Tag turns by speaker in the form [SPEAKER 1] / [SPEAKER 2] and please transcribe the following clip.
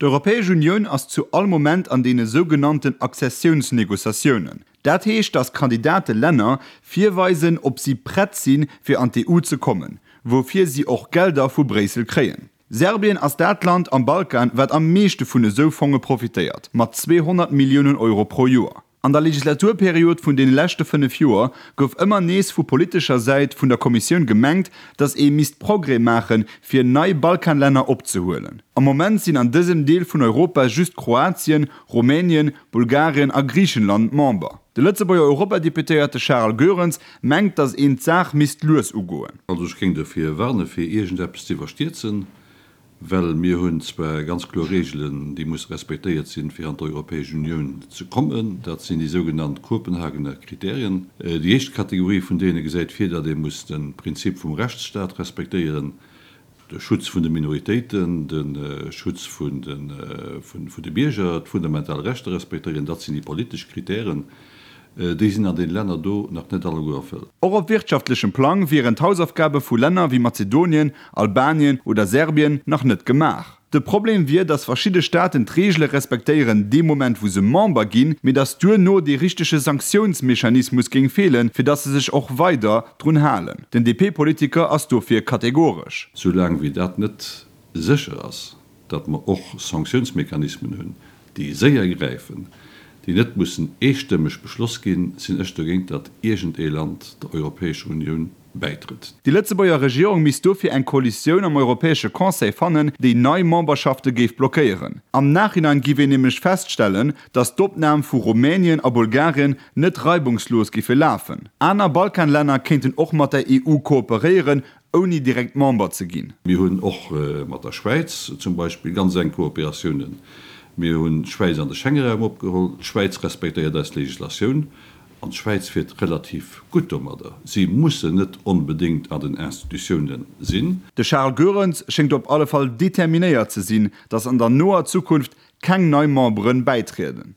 [SPEAKER 1] D'Europäesch Unioun ass zu all Moment an deene sougenannten Accessiounsnegociatiounen. Dat heescht, datt Kandidatelänner virweisen, ob si prett sinn, fir an d'EU ze kommen, woufir si och Gelder vu Bréissel kréien. Serbien ass dat Land am Balkan, wat am meeschte vun esou Fonge profitéiert, mat 200 Milliounen Euro pro Joer. An der Legislaturperiod vun deene leschte 5 Joer gouf ëmmer nees vu politescher Säit vun der Kommissioun gemengt, datt ee misst Progrès maachen, fir nei Balkanlänner opzehuelen. Am Moment sinn an dësem Deel vun Europa just Kroatien, Rumänien, Bulgarien a Griichenland Member. De Lëtzebuerger Europadeputéierte Charles Goerens mengt, datt een d'Saach misst lues ugoen.
[SPEAKER 2] Also ech géing dofir warne fir iergendeppes ze iwwerstierzen, well mir hunn zwar ganz kloer Reegelen, déi musse respektéiert sinn, fir an d'Europäesch Unioun ze kommen. Dat sinn déi sougenannt Kopenhagener Kriterien. Déi éischt Kategorie vun deene gesäit vir, datt ee muss de Prinzip vum Rechtsstaat respektéieren, de Schutz vun de Minoritéiten, de Schutz vun de Bierger, d'fundamental Rechter respektéieren, dat sinn déi politesch Kritären. Déi sinn an deene Länner do nach net alleguer erfëllt.
[SPEAKER 1] Och op wirtschaftlechem Plang wieren d'Hausaufgabe vu Länner wéi Mazedonien, Albanien oder Serbien nach net gemaach. De Problem wier, datt verschidde Staaten d'Reegele respektéieren dee Moment wou se Member ginn, mee datt duerno dee richtege Sanktiounsmechanismus géing feelen, fir datt se sech och weider drun halen. Den DP-Politiker ass dofir kategoresch.
[SPEAKER 2] Soulaang wéi dat net sécher ass, datt mer och Sanktiounsmechanismen hunn, déi séier gräifen, déi net mussen eestëmmeg beschloss ginn, sinn ech dogéint, datt iergend ee Land der Europäescher Unioun bäitrëtt.
[SPEAKER 1] Déi Lëtzebuerger Regierung misst dofir eng Koalitioun am Europäesche Conseil fannen, déi nei Memberschafte géif blockéieren. Am Nachhinein giff een nämlech feststellen, datt d'Opnam vu Rumänien a Bulgarien net reibungslos giffe lafen. Aner Balkanlänner kéinten och mat der EU kooperéieren, ouni direkt Member ze ginn.
[SPEAKER 2] Mir hunn och mat der Schwäiz zum Beispill ganz enk Kooperatiounen. Mir hunn d'Schwäiz an de Schengeraum opgeholl. D'Schwäiz respektéiert eis Legislatioun an d'Schwäiz fiert relativ gutt domadder. Si mussen net onbedéngt an den Institutiounen sinn.
[SPEAKER 1] De Charles Goerens schéngt op alle Fall determinéiert ze sinn, datt an der noer Zukunft keng nei Memberen bäitrieden.